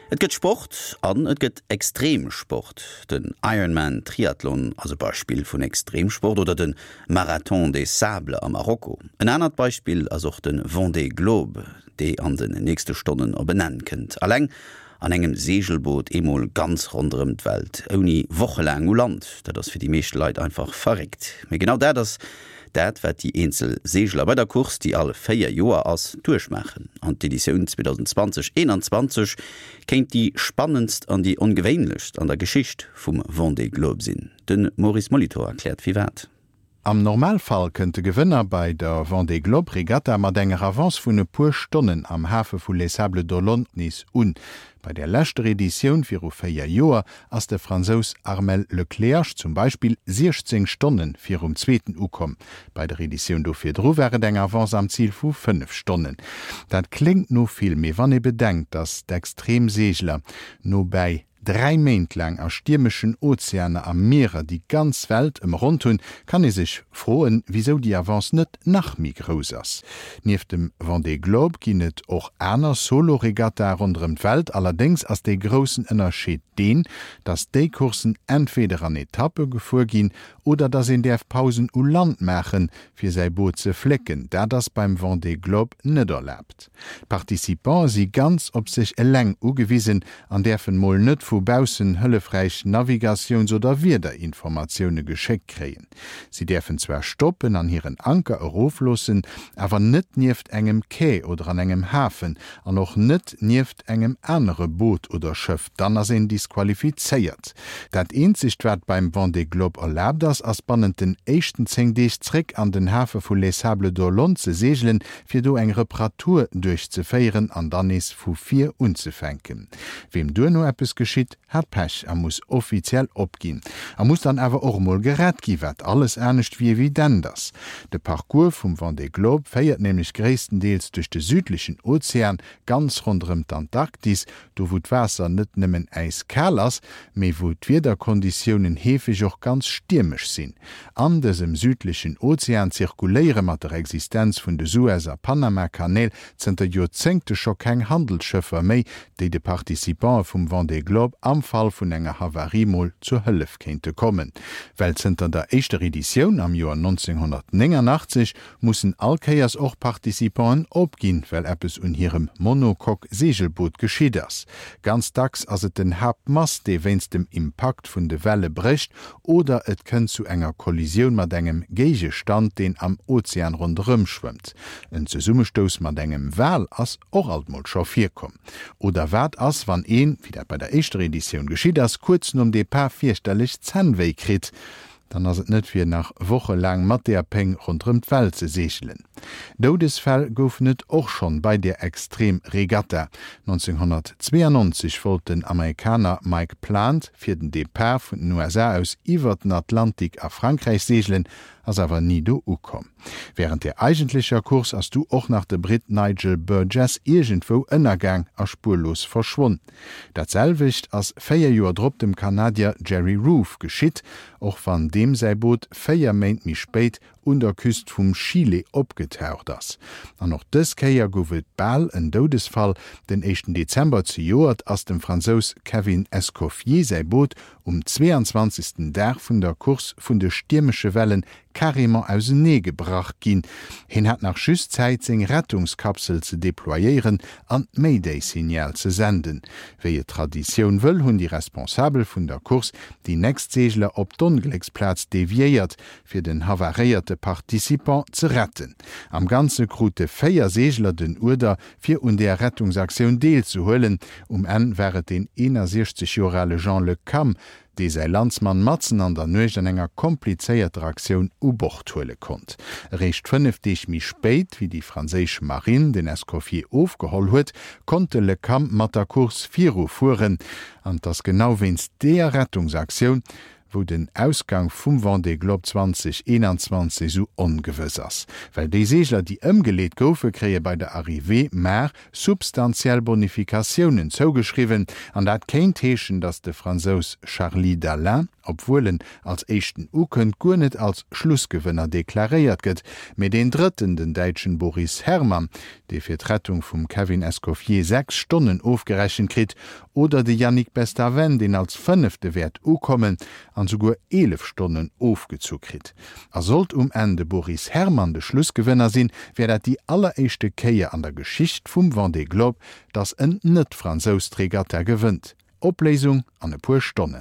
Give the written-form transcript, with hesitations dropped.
Et gëtt Sport an et gëtt Extremsport. Den Ironman Triathlon ass e Beispill vun Extremsport oder de Marathon des Sables a Marokko. En anert Beispill ass och de Vendée Globe, dee an den nächste Stonnen op en Enn kënnt. Alleng an engem Seegelboot eemol ganz ronderëm d'Welt, ouni wochelaang u Land, dat ass fir déi meescht Leit einfach verréckt. Mee genau dat ass Dat wat déi eenzel Seegler bei der Course, déi all 4 Joer ass, duerchmaachen. An d'Editioun 2020, 21 kéint déi spannendst an déi ongewéinlechst an der Geschicht vum Vendée Globe sinn. De Maurice Molitor erkläert firwat. Am Normalfall kënnt de Gewënner bei der Vendée Globe Regatta mat enger Avance vun e puer Stonnen am Hafe vu Les Sables d'Olonne nees un. Bei der leschter Editioun viru 4 Joer ass de Fransous Armel Le Cléac'h zum Beispill 16 Stonne virum Zweeten ukomm. Bei der Editioun do virdru war et eng Avance am Zil vu 5 Stonnen. Dat kléngt no vill, mee wann ee bedenkt, datt d'Extremseegler nobäi 3 Méint laang a stiermeschen Ozeaner a Mierer déi ganz Welt ëmronnt hunn, kann ee sech froen, wisou déi Avance net nach méi grouss ass. Nieft dem Vendée Globe ginn et och aner Solo-Regattae ronderëm d'Welt. Allerdéngs ass dee groussen Ënnerscheed deen, dass déi Courssen entweder an Etappe gefuer ginn oder dass een däerf Pausen u Land maachen, fir säi Boot ze flécken. Dat ass beim Vendée Globe net erlaabt. D'Participante si ganz op sech eleng ugewisen an däerfen mol net vu baussen hëllefräich Navigatiouns oder Wiederinformatioune geschéckt kréien. Si däerfen zwar stoppen an hiren Anker erofloossen, awer net nieft engem Quai oder an engem Hafen an och net nieft engem anere Boot oder Schëff, dann ass een disqualifizéiert. Dat eenzegt wat beim Vendée Globe erlaabt ass, ass bannent den éischten 10 Deeg zréck an den Hafe vu Les Sables d'Olonne ze seegelen, fir do eng Reparatur duerchzeféieren an dann nees vu vir unzefänken. Weem duerno eppes geschitt, hat Pech a muss offiziell opginn. A muss dann awer och emol gerett gi, wat alles anescht wéi evident ass. De Parcours vum Vendée Globe féiert nämlech gréisstendeels duerch de südlechen Ozean, ganz ronderëm d'Antarktis, do wou d'Waasser net nëmmen äiskal ass, mee wou d'Wiederkonditiounen heefeg och ganz stiermesch sinn. An dësem südlechen Ozean zirkuléiere mat der Existenz vun de Suez a Panama-Kanäl zënter Joerzéngte scho keng Handelsschëffer méi, déi de Participante vum Vendée Globe am Fall vun enger Havarie mol zur Hëllef kéinte kommen. Well zënter der éischter Editioun am Joer 1989 mussen all Kéiers och Participanten opginn, well eppes un hirem Monocoque-Seegelboot geschitt ass. Ganz dacks ass et den Haaptmast, dee wéinst dem Impakt vun de Welle brécht, oder et kënnt zu enger Kollisioun mat engem Géigestand, deen am Ozean ronderëm schwëmmt. En Zesummestouss mat engem Wal ass och alt mol scho virkomm. Oder wat ass, wann een, wéi dat bei der éischter Editioun geschitt ass, kuerz nom Depart fierchterlech Zännwéi kritt? Dann ass et net fir nach wochelaang mat deer Péng ronderëm d'Welt ze seegelen. Doudesfäll goufen et och schonn bei deer Extrem-Regatta. 1992 wollt den Amerikaner Mike Plant fir den Depart vun den USA aus iwwer den Atlantik a Frankräich seegelen, ass awer ni do ukomm. Wärend der eigentlecher Course ass du och nach de Britt Nigel Burgess iergendwou ënnergaang a spuerlos verschwonn. Dat selwecht ass 4 Joer drop dem Kanadier Jerry Roof geschitt, och wann deem säi Boot 4 Méint méi spéit un der Küst vum Chile opgetaucht ass. An och dës Kéier gouf et bal en Doudesfall, Den éischten Dezember zejoert ass dem Fransous Kevin Escoffier säi Boot um 22. Dag vun der Course vun de stiermesche Wellen carrément ausenee gebrach ginn. Hien hat nach just Zäit seng Rettungskapsel ze deployéieren an d'Mayday-Signal ze senden. Wéi et d'Traditioun wëll, hunn déi Responsabel vun der Course déi nächst Seegler op d'Onglécksplaz deviéiert, fir den havaréierte Participant ze retten. Am Ganze krute 4 Seegler den Uerder, fir un där Rettungsaktioun deelzehuelen. Um Enn war et deen 61 Joer ale Jean Le Cam, dee säi Landsmann matzen an der Nuecht an enger komplizéierter Aktioun u Bord huele konnt. Eréischt 5 Deeg méi spéit, wéi déi franséisch Marinn den Escoffier ofgeholl huet, konnt de Le Cam mat der Course virufueren. An 't ass genau wéinst deeër Rettungsaktioun, wou den Ausgang vum Vendée Globe 2021 esou ongewëss ass. Well déi Seegler, déi ëmgeleet goufe, kréie bei der Arrivée mar substantiell Bonifikatiounen zougeschriwwen. An dat kéint heeschen, datt de Fransous Charly Dalin. obwuel en als éischten ukënnt, guer net als Schlussgewënner deklaréiert gëtt, mee deen drëtten, den Däitschen Boris Herrmann, dee fir d'Rettung vum Kevin Escoffier 6 Stonnen ofgerechent kritt, oder de Yannick Bestaven, deen als fënnefte wäert ukommen an souguer 11 Stonnen ofgezu kritt. A sollt um Enn de Boris Herrmann de Schlussgewënner sinn, wär dat déi alleréischte Kéier an der Geschicht vum Vendée Globe, datt en Net-Fransous d'Regatta gewënnt. Opléisung an e puer Stonnen.